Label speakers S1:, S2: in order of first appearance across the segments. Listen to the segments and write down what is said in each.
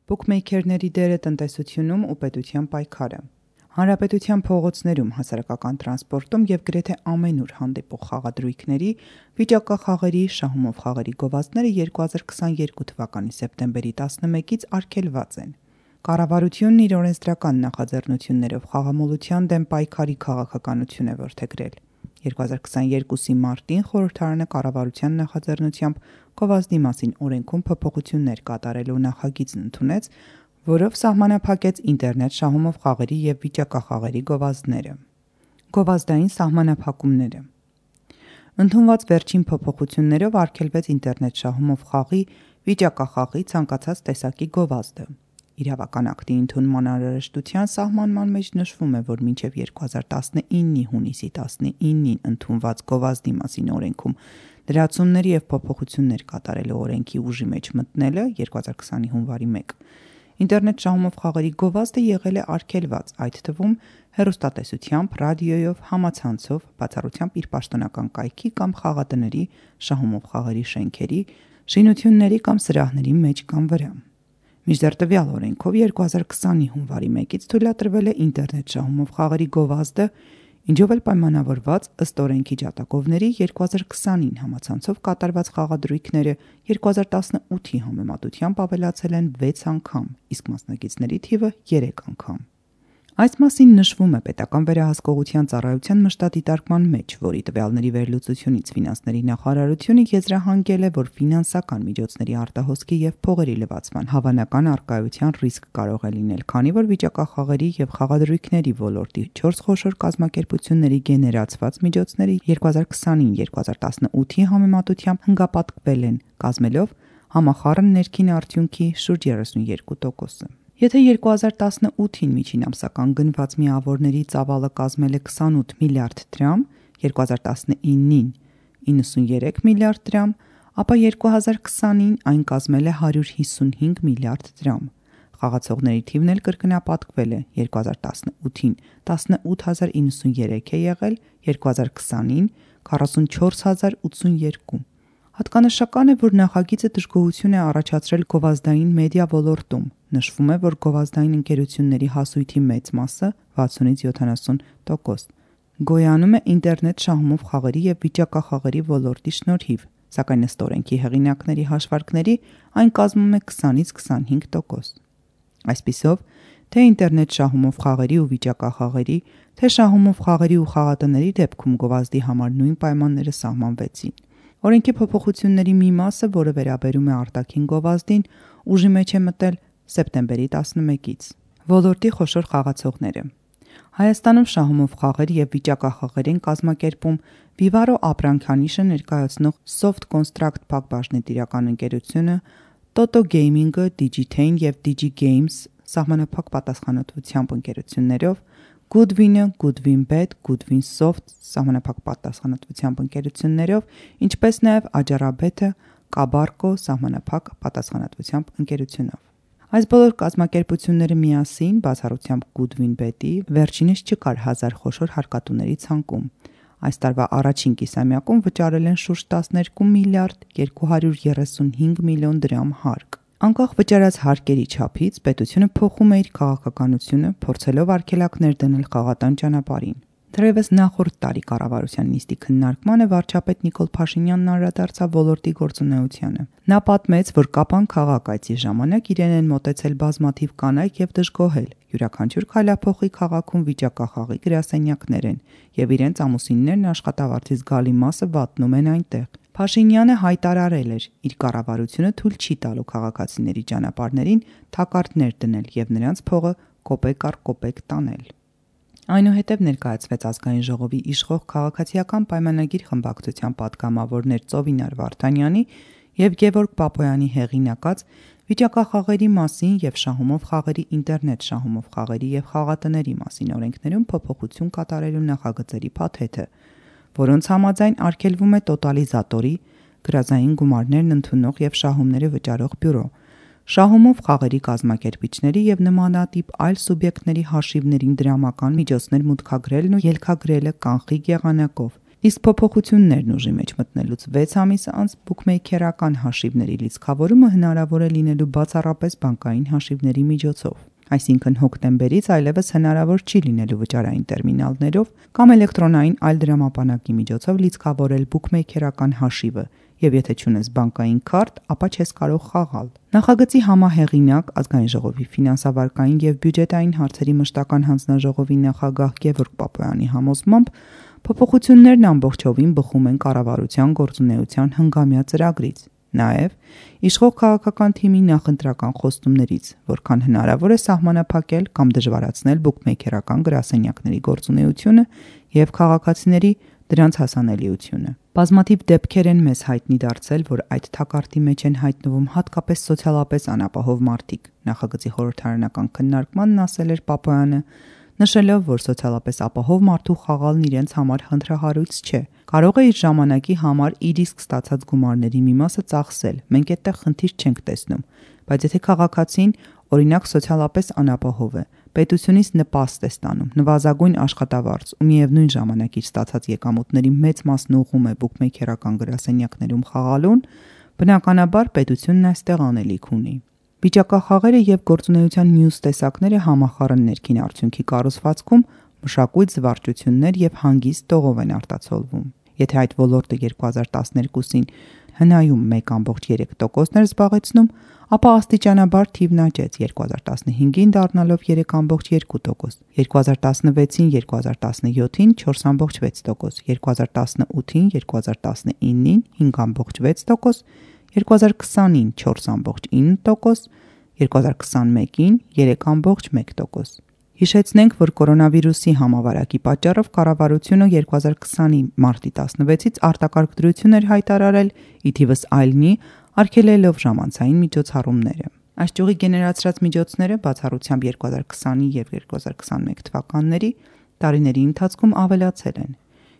S1: Բուքմեյքերների դերը տնտեսությունում ու պետության պայքարը։ Հանրապետության փողոցներում, հասարակական տրանսպորտում և գրեթե ամենուր հանդիպող խաղադրույքների, վիճակախաղերի, շահումով խաղերի գովազդները 2022 թվականի սեպտեմբերի 11-ից արգելված են։ Կառավարությունն իր օրենսդրական նախաձեռնություններով խաղամոլության դեմ պայքարի քաղաքականություն է որդեգրել։ 2022-ի մարտին խորհրդարանը կառավարության նախաձեռնությամբ գովազդի մասին օրենքում փոփոխություններ կատարելու նախագիծն ընդունեց, որով սահմանափակեց ինտերնետ շահումով խաղերի և վիճակախաղերի գովազդները։ Գովազդային սահմանափակումները։ Ընդունված վերջին փոփոխություններով արգելվեց ինտերնետ շահումով խաղի, վիճակախաղի ցանկացած տեսակի գովազդը։ Իրավական ակտի ընդունման անհրաժեշտության սահմանման մեջ նշվում է, որ մինչև 2019-ի հունիսի 19-ին ընդունված գովազդի մասին օրենքում լրացումների և փոփոխություններ կատարելու օրենքի ուժի մեջ մտնելը 2020-ի հունվարի 1 ինտերնետ շահումով խաղերի գովազդը եղել է արգելված, այդ թվում հեռուստատեսությամբ, ռադիոյով, համացանցով, բացառությամբ իր պաշտոնական կայքի կամ խաղատների, շահումով խաղերի շենքերի, շինությունների կամ սրահների մեջ կամ վրա։ Մինչդեռ տվյալ օրենքով 2020-ի հունվարի 1-ից թույլատրվել է ինտերնետ շահումով խաղերի գովազդը, ինչով էլ պայմանավորված ըստ օրենքի ջատագովների 2020-ին համացանցով կատարված խաղադրույքները 2018-ի համեմատությամբ ավելացել են 6 անգամ, իսկ մասնակիցների թիվը 3 անգամ։ Այս մասին նշվում է Պետական վերահսկողության ծառայության մշտադիտարկման մեջ, որի տվյալների վերլուծությունից Ֆինանսների նախարարությունը եզրահանգել է, որ ֆինանսական միջոցների արտահոսքի և փողերի լվացման հավանական առկայության ռիսկ կարող է լինել, քանի որ վիճակախաղերի և խաղադրույքների ոլորտի 4 խոշոր կազմակերպությունների գեներացված միջոցները 2020-ին 2018-ի համեմատությամբ հնգապատկվել են, կազմելով համախառն ներքին արդյունքի շուրջ 32%։ Եթե 2018-ին միջին ամսական գնված միավորների ծավալը կազմել է 28 միլիարդ դրամ, 2019-ին 93 միլիարդ դրամ, ապա 2020-ին այն կազմել է 155 միլիարդ դրամ։ Խաղացողների թիվն էլ կրկնապատկվել է, 2018-ին 18093 է եղել, 2020-ին 44082։ Հատկանշական է, որ նախագիծը դժգոհություն է առաջացրել գովազդային մեդիա ոլորտում։ Նշվում է, որ գովազդային ընկերությունների հասույթի մեծ մասը 60-70% գոյանում է ինտերնետ շահումով խաղերի և վիճակախաղերի ոլորտի շնորհիվ, սակայն ըստ օրենքի հեղինակների հաշվարկների այն կազմում է 20-25%։ Այսպիսով, թե ինտերնետ շահումով խաղերի ու վիճակախաղերի, թե շահումով խաղերի ու խաղատների դեպքում գովազդի համար նույն պայմանները սահմանվեցին։ Օրենքի փոփոխությունների մի մասը, որը վերաբերում է արտաքին գովազդին, ուժի մեջ է մտել սեպտեմբերի 11-ից։ Ոլորտի խոշոր խաղացողները։ Հայաստանում շահումով խաղեր և վիճակախաղեր են կազմակերպում Vivaro ապրանքանիշը ներկայացնող Soft Construct փակbaşնետիրական ընկերությունը, Toto Gaming-ը, Digitane և DigiGames սահմանափակ պատասխանատվությամբ ընկերություններով, Goodwin-ը, Goodwin-Bet, Goodwin-Soft սահմանափակ պատասխանատվությամբ ընկերություններով, ինչպես նաև Ajara-Bet-ը, Kabarco սահմանափակ պատասխանատվությամբ ընկերությունով։ Այս բոլոր կազմակերպությունները միասին, բացառությամբ Goodwin-Bet-ի, վերջինս չկար 1000 խոշոր հարկատուների ցանկում։ Այս տարվա առաջին կիսամյակում վճարել են շուրջ 12 միլիարդ 235 միլիոն դրամ հարկ։ Անկախ վճարած հարկերի չափից, պետությունը փոխում է իր քաղաքականությունը, փորձելով արգելակներ դնել խաղատան ճանապարհին։ Թերևս նախորդ տարի կառավարության նիստի քննարկմանը վարչապետ Նիկոլ Փաշինյանն անդրադարձավ ոլորտի գործունեությանը։ Նա պատմեց, որ Կապան քաղաք այցի ժամանակ իրեն են մոտեցել բազմաթիվ կանայք և դժգոհել։ Յուրաքանչյուր քայլափոխի քաղաքում վիճակախաղի գրասենյակներ են, և իրենց ամուսիններն աշխատավարձից զգալի մասը վատնում են այնտեղ։ Փաշինյանը հայտարարել էր՝ իր կառավարությունը թույլ չի տալու քաղաքացիների ճանապարհներին թակարդներ դնել և նրանց փողը կոպեկ առ կոպեկ տանել։ Այնուհետև ներկայացվեց Ազգային ժողովի իշխող Քաղաքացիական պայմանագիր խմբակցության պատգամավորներ Ծովինար Վարդանյանի և Գևորգ Բաբոյանի հեղինակած վիճակախաղերի մասին և շահումով խաղերի, ինտերնետ շահումով խաղերի և խաղատների մասին օրենքներում փոփոխություն կատարելու նախագծերի փաթեթը, որոնց համաձայն արգելվում է տոտալիզատորի, գրազային գումարներն ընդունող և շահումները վճարող բյուրո, շահումով խաղերի կազմակերպիչների և նմանատիպ այլ սուբյեկտների հաշիվներին դրամական միջոցներ մուտքագրելն ու ելքագրելը կանխիկ եղանակով Իսկ փոփոխություններն ուժի մեջ մտնելուց 6 ամիս անց բուքմեյքերական հաշիվների լիցքավորումը հնարավոր է լինելու բացառապես բանկային հաշիվների միջոցով։ Այսինքն հոկտեմբերից այլևս հնարավոր չի լինելու վճարային տերմինալներով կամ էլեկտրոնային այլ դրամապանակի միջոցով լիցքավորել բուքմեյքերական հաշիվը, եւ եթե չունես բանկային քարտ, ապա չես կարող խաղալ։ Նախագծի համահեղինակ Ազգային ժողովի ֆինանսավարկային եւ բյուջետային հարցերի մշտական հանձնաժողովի նախագահ Գևորգ Պապոյանի համոզմամբ փոփոխություններն ամբողջովին բխում են կառավարության գործունեության հնգամյա ծրագրից, նաեւ իշխող քաղաքական թիմի նախընտրական խոստումներից, որքան հնարավոր է սահմանափակել կամ դժվարացնել բուքմեյքերական գրասենյակների գործունեությունը եւ քաղաքացիների դրանց հասանելիությունը։ Բազմաթիվ դեպքեր են մեզ հայտնի դարձել, որ այդ թակարդի մեջ են հայտնվում հատկապես սոցիալապես անապահով մարդիկ, նախագծի խորհրդարանական քննարկմանն ասել էր Պապոյանը, նշելով, որ սոցիալապես ապահով մարդու խաղալն իրենց համար խնդրահարույց չէ, կարող է իր ժամանակի համար իր իսկ ստացած գումարների մի մասը ծախսել, մենք այդտեղ խնդիր չենք տեսնում, բայց եթե քաղաքացին, օրինակ սոցիալապես անապահով է, պետությունից նպաստ է ստանում, նվազագույն աշխատավարձ ու միևնույն ժամանակ իր ստացած եկամուտների մեծ մասն ուղղում է բուքմեյքերական գրասենյակներում խաղալուն, բնականաբար պետությունն այստեղ անելիք ունի։ Վիճակախաղերը եւ գործունեության մյուս տեսակները համախառն ներքին արդյունքի կառուցվածքում մշակույթ, զվարճություններ եւ հանգիստ տողով են արտացոլվում։ Եթե այդ ոլորտը 2012-ին հնայում 1.3% էր զբաղեցնում, ապա աստիճանաբար թիվն աճեց 2015-ին դառնալով 3.2%, 2016-ին 2017-ին 4.6%, 2018-ին 2019-ին 5.6%, 2020-ին 4.9%, 2021-ին 3.1%։ Հիշեցնենք, որ կորոնավիրուսի համավարակի պատճառով կառավարությունը 2020-ի մարտի 16-ից արտակարգ դրություն էր հայտարարել, ի թիվս այլնի արգելելով ժամանցային միջոցառումները։ Այս ճյուղի գեներացրած միջոցները բացառությամբ 2020-ի եւ 2021 թվականների տարիների ընթացքում ավելացել են։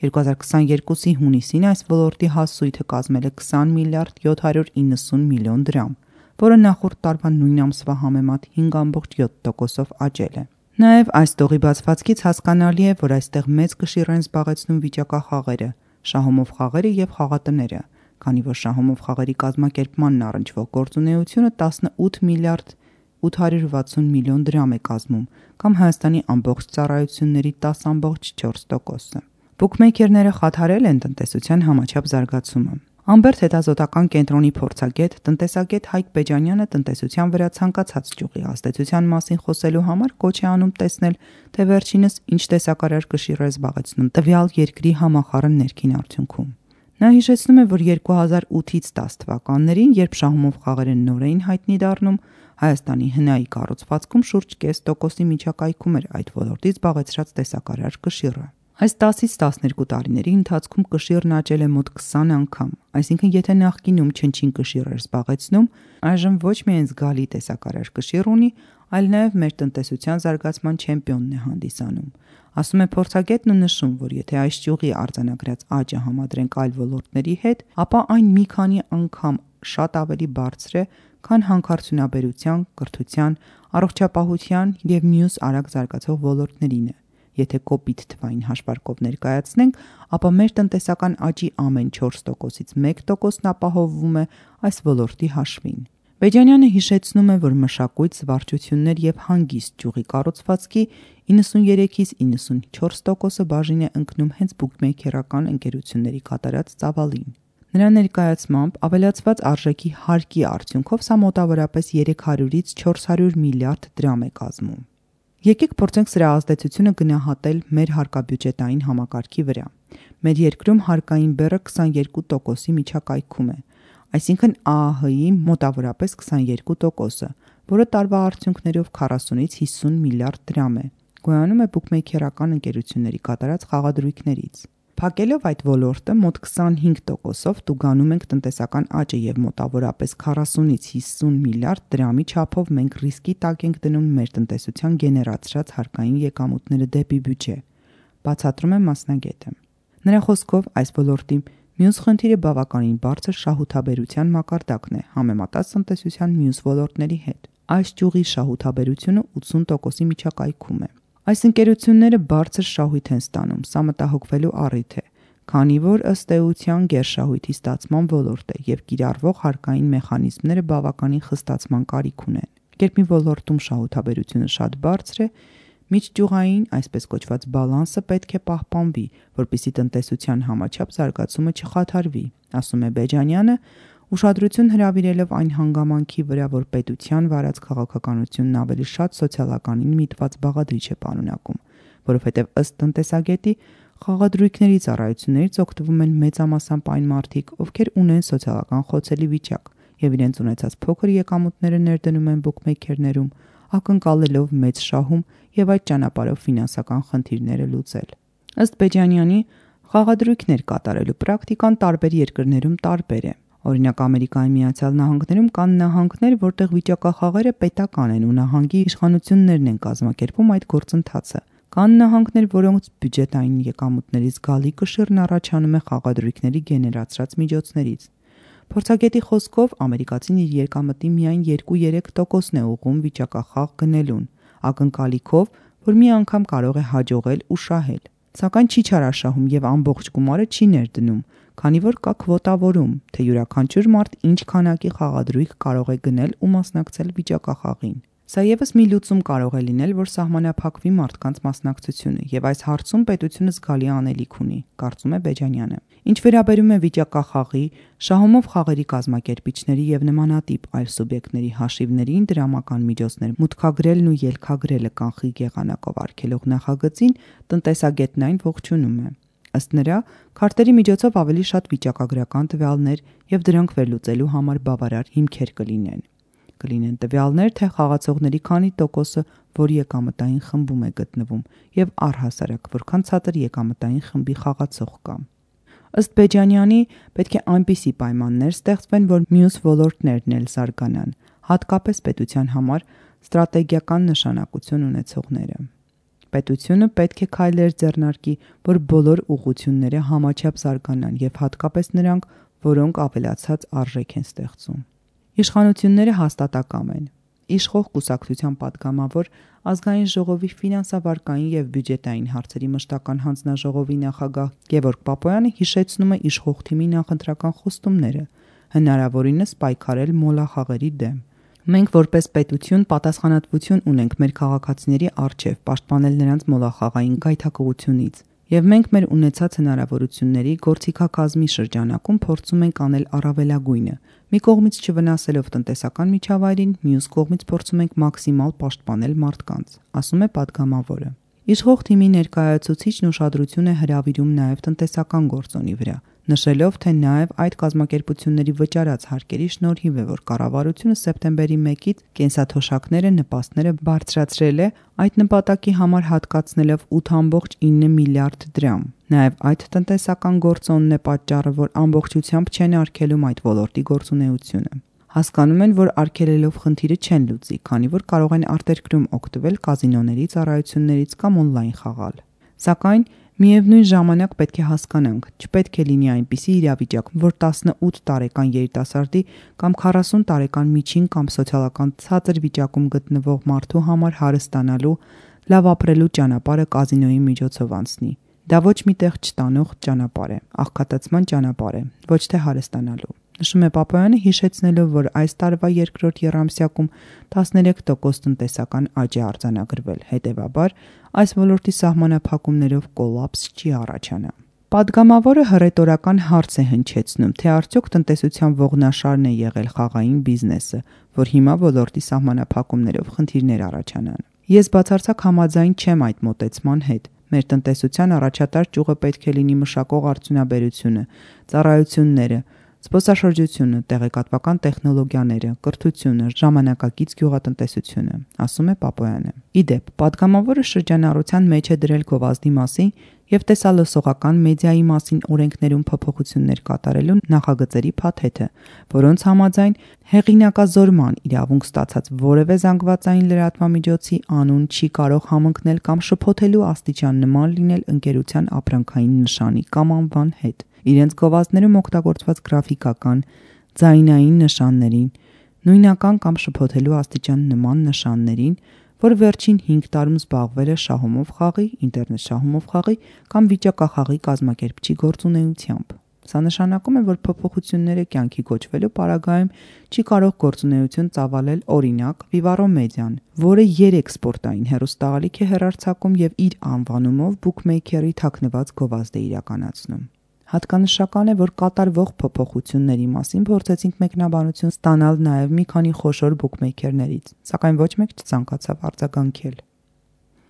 S1: 2022-ի հունիսին այս ոլորտի հասույթը կազմել է 20 միլիարդ 790 միլիոն դրամ, որը նախորդ տարվա նույն ամսվա համեմատ 5.7%-ով աճել է։ Նաև այս տողի բացվածքից հասկանալի է, որ այստեղ մեծ կշիռ են զբաղեցնում վիճակախաղերը, շահումով խաղերը եւ խաղատները, քանի որ շահումով խաղերի կազմակերպմանն առնչվող գործունեությունը 18 միլիարդ 860 միլիոն դրամ է կազմում, կամ Հայաստանի ամբողջ ծառայությունների 10.4%-ը։ Բուքմեյքերները խաթարել են տնտեսության համաչափ զարգացումը։ Ամբերտ հետազոտական կենտրոնի փորձագետ, տնտեսագետ Հայկ Բեջանյանը տնտեսության վրա ցանկացած ճյուղի ազդեցության մասին խոսելու համար կոչ է անում տեսնել, թե վերջինս ինչ տեսակարար կշիռ է զբաղեցնում տվյալ երկրի համախառն ներքին արդյունքում։ Նա հիշեցնում է, որ 2008-ից 10 թվականներին, երբ շահումով խաղերը նոր էին հայտնի դառնում, Հայաստանի հնայի կառուցվածքում շուրջ 0.5%-ի միջակայքում էր այդ ոլորտից զբաղեցրած տեսակարար կշիռը։ Այս 10-ից 12 տարիների ընթացքում կշիռն աճել է մոտ 20 անգամ, այսինքն եթե նախկինում չնչին կշիռ էր զբաղեցնում, այժմ ոչ միայն զգալի տեսակարար կշիռ ունի, այլ նաև մեր տնտեսության զարգացման չեմպիոնն է հանդիսանում։ Ասում է փորձագետն ու նշում, որ եթե այս ճյուղի արձանագրած աճը համադրենք այլ ոլորտների հետ, ապա այն մի քանի անգամ շատ ավելի բարձր է, քան հանքարդյունաբերության, կրթության, առողջապահության եւ մյուս արագ զարգացող ոլորտներինը։ Եթե կոպիտ թվային հաշվարկով ներկայացնենք, ապա մեր տնտեսական աճի ամեն 4%-ից 1%-ն ապահովվում է այս ոլորտի հաշվին։ Բեջանյանը հիշեցնում է, որ մշակույթ, զվարճություններ եւ հանգիստ ճյուղի կառուցվածքի 93-ից 94%-ը բաժին է ընկնում հենց բուքմեյքերական ընկերությունների կատարած ծավալին։ Նրա ներկայացմամբ ավելացված արժեքի հարկի արդյունքով սա մոտավորապես 300-ից 400 միլիարդ դրամ է կազմում։ Եկեք փորձենք սրա ազդեցությունը գնահատել մեր հարկաբյուջետային համակարգի վրա։ Մեր երկրում հարկային բեռը 22%-ի միջակայքում է, այսինքն ԱԱՀ-ի մոտավորապես 22%-ը, որը տարվա արդյունքներով 40-ից 50 միլիարդ դրամ է, գոյանում է բուքմեյքերական ընկերությունների կատարած խաղադրույքներից։ Փակելով այդ ոլորտը մոտ 25%-ով տուգանում ենք տնտեսական աճը եւ մոտավորապես 40-ից 50 միլիարդ դրամի չափով մենք ռիսկի տակ ենք դնում մեր տնտեսության գեներացրած հարկային եկամուտները դեպի բյուջե, բացատրում է մասնագետը։ Նրա խոսքով այս ոլորտի մյուս խնդիրը բավականին բարձր շահութաբերության մակարդակն է համեմատած տնտեսության մյուս ոլորտների հետ։ Այս ճյուղի շահութաբերությունը 80%-ի միջակայքում է։ Այս ընկերությունները բարձր շահույթ են ստանում, սա մտահոգվելու առիթ է, քանի որ ըստ էության գերշահույթի ստացման ոլորտ է եւ կիրառվող հարկային մեխանիզմները բավականին խստացման կարիք ունեն։ Երբ մի ոլորտում շահութաբերությունը շատ բարձր է, միջճյուղային, այսպես կոչված բալանսը պետք է պահպանվի, որպեսզի տնտեսության համաչափ զարգացումը չխաթարվի, ասում է Բեջանյանը, ուշադրություն հրավիրելով այն հանգամանքի վրա, որ պետության վարած քաղաքականությունն ավելի շատ սոցիալականին միտված բաղադրիչ է պարունակում, որովհետև ըստ տնտեսագետի խաղադրույքների ծառայություններից օգտվում են մեծամասամբ այն մարդիկ, ովքեր ունեն սոցիալական խոցելի վիճակ եւ իրենց ունեցած փոքր եկամուտները ներդնում են բուքմեյքերներում, ակնկալելով մեծ շահում եւ այդ ճանապարհով ֆինանսական խնդիրները լուծել։ Ըստ Բեջանյանի, խաղադրույքներ կատարելու պրակտիկան տարբեր երկրներում տարբեր է։ Օրինակ Ամերիկայի Միացյալ Նահանգներում կան նահանգներ, որտեղ վիճակախաղերը պետական են ու նահանգի իշխանություններն են կազմակերպում այդ գործընթացը։ Կան նահանգներ, որոնց բյուջետային եկամուտների զգալի կշիռն առաջանում է խաղադրույքների գեներացրած միջոցներից։ Փորձագետի խոսքով ամերիկացին իր եկամտի միայն 2-3%-ն է ուղղում վիճակախաղ գնելուն, ակնկալիքով, որ մի անգամ կարող է հաջողել ու շահել։ Սակայն չի չարաշահում եւ ամբողջ գումարը չի ներդնում, քանի որ կա քվոտավորում, թե յուրաքանչյուր մարդ ինչ քանակի խաղադրույք կարող է գնել ու մասնակցել վիճակախաղին։ Սա եւս մի լուծում կարող է լինել, որ սահմանափակվի մարդկանց մասնակցությունը, եւ այս հարցում պետությունը զգալի անելիք ունի, կարծում է Բեջանյանը։ Ինչ վերաբերում է վիճակախաղի, շահումով խաղերի կազմակերպիչների եւ նմանատիպ այլ սուբյեկտների հաշիվներին դրամական միջոցներ մուտքագրելն ու ելքագրելը կանխիկ եղանակով արգելող նախագծին տնտեսագետն այն ողջունում է։ Ըստ նրա, քարտերի միջոցով ավելի շատ վիճակագրական տվյալներ եւ դրանք վերլուծելու համար բավարար հիմքեր կլինեն տվյալներ, թե խաղացողների քանի տոկոսը որ եկամտային խմբում է գտնվում եւ առհասարակ որքան ցածր եկամտային խմբի խաղացող կա։ Ըստ Բեջանյանի, պետք է այնպիսի պայմաններ ստեղծվեն, որ մյուս ոլորտներն էլ զարգանան, հատկապես պետության համար ստրատեգիական նշանակություն ունեցողները։ Պետությունը պետք է քայլեր ձեռնարկի, որ բոլոր ուղղությունները համաչափ զարգանան եւ հատկապես նրանք, որոնք ավելացած արժեք են ստեղծում։ Իշխանությունները հաստատակամ են։ Իշխող կուսակցության պատգամավոր Ազգային ժողովի ֆինանսավարկային եւ բյուջետային հարցերի մշտական հանձնաժողովի նախագահ Գևորգ Պապոյանը հիշեցնում է իշխող թիմի նախընտրական խոստումները, հնարավորինս պայքարել մոլախաղերի դեմ։ Մենք որպես պետություն պատասխանատվություն ունենք մեր քաղաքացիների առջև պաշտպանել նրանց մոլախաղային գայթակղությունից, եւ մենք մեր ունեցած հնարավորությունների գործիքակազմի շրջանակում փորձում ենք անել առավելագույնը։ Մի կողմից չվնասելով տնտեսական միջավայրին, մյուս կողմից փորձում ենք մաքսիմալ պաշտպանել մարդկանց, ասում է պատգամավորը։ Իշխող թիմի ներկայացուցիչն ուշադրություն է հրավիրում նաև տնտեսական գործոնի վրա, նշելով, թե նաև այդ կազմակերպությունների վճարած հարկերի շնորհիվ է, որ կառավարությունը սեպտեմբերի 1-ից կենսաթոշակները նպաստները բարձրացրել է, այդ նպատակի համար հատկացնելով 8.9 միլիարդ դրամ։ Նաև այդ տնտեսական գործոնն է պատճառը, որ ամբողջությամբ չեն արգելում այդ ոլորտի գործունեությունը։ Հասկանում են, որ արգելելով խնդիրը չեն լուծի, քանի որ կարող են արտերկրում օգտվել կազինոների ծառայություններից կամ օնլայն խաղալ։ Սակայն միևնույն ժամանակ պետք է հասկանանք, չպետք է լինի այնպիսի իրավիճակ, որ 18 տարեկան երիտասարդի կամ 40 տարեկան միջին կամ սոցիալական ցածր վիճակում գտնվող մարդու համար հարստանալու, լավ ապրելու ճանապարհը կազինոյի միջոցով անցնի։ Դա ոչ մի տեղ չտանող ճանապարհ է, աղքատացման ճանապարհ է, ոչ թե հարստանալու։ Նշում է Պապոյանը, հիշեցնելով, որ այս տարվա երկրորդ եռամսյակում 13% տնտեսական աճ է արձանագրվել, հետևաբար այս ոլորտի սահմանափակումներով կոլապս չի առաջանա։ Պատգամավորը հռետորական հարց է հնչեցնում, թե արդյոք տնտեսության ողնաշարն է եղել խաղային բիզնեսը, որ հիմա ոլորտի սահմանափակումներով խնդիրներ առաջանան։ Ես բացարձակ համաձայն չեմ այդ մոտեցման հետ։ Մեր տնտեսության առաջատար ճյուղը պետք է լինի մշակող արդյունաբերությունը, ծառայությունները, զբոսաշրջությունը, տեղեկատվական տեխնոլոգիաները, կրթությունը, ժամանակակից գյուղատնտեսությունը, ասում է Պապոյանը։ Իդեպ, պատգամավորը շրջանառության մեջ է դրել գովազդի մասին եւ տեսալսողական մեդիայի մասին օրենքներում փոփոխություններ կատարելու նախագծերի փաթեթը, որոնց համաձայն հեղինակազորման իրավունք ստացած որևէ զանգվածային լրատվամիջոցի անուն չի կարող համընկնել կամ շփոթելու աստիճան նման լինել ընկերության ապրանքային նշանի կամ անվան հետ, իրենց գովազդներում օգտագործված գրաֆիկական, ձայնային նշաններին, նույնական կամ շփոթելու աստիճան նման նշաններին, որ վերջին 5 տարում զբաղվել է շահումով խաղի, ինտերնետ շահումով խաղի կամ վիճակախաղի կազմակերպչի գործունեությամբ։ Սա նշանակում է, որ փոփոխությունները կյանքի կոչվելու պարագայում չի կարող գործունեություն ծավալել օրինակ Vivaro Media-ն, որը 3 սպորտային հեռուստաալիք է հեռարձակում եւ իր անվանումով բուքմեյքերի թաքնված գովազդ է իրականացնում։ Հատկանշական է, որ կատարվող փոփոխությունների մասին փորձեցինք մեկնաբանություն ստանալ նաև մի քանի խոշոր բուքմեյքերներից, սակայն ոչ մեկ չցանկացավ արձագանքել։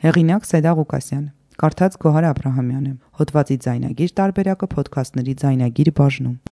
S1: Հեղինակ Սեդա Ղուկասյան, կարդաց Գոհար Աբրահամյանը, հոդվածի ձայնագիր տարբերակը Փոդքասթների ձայնագիր բաժնում։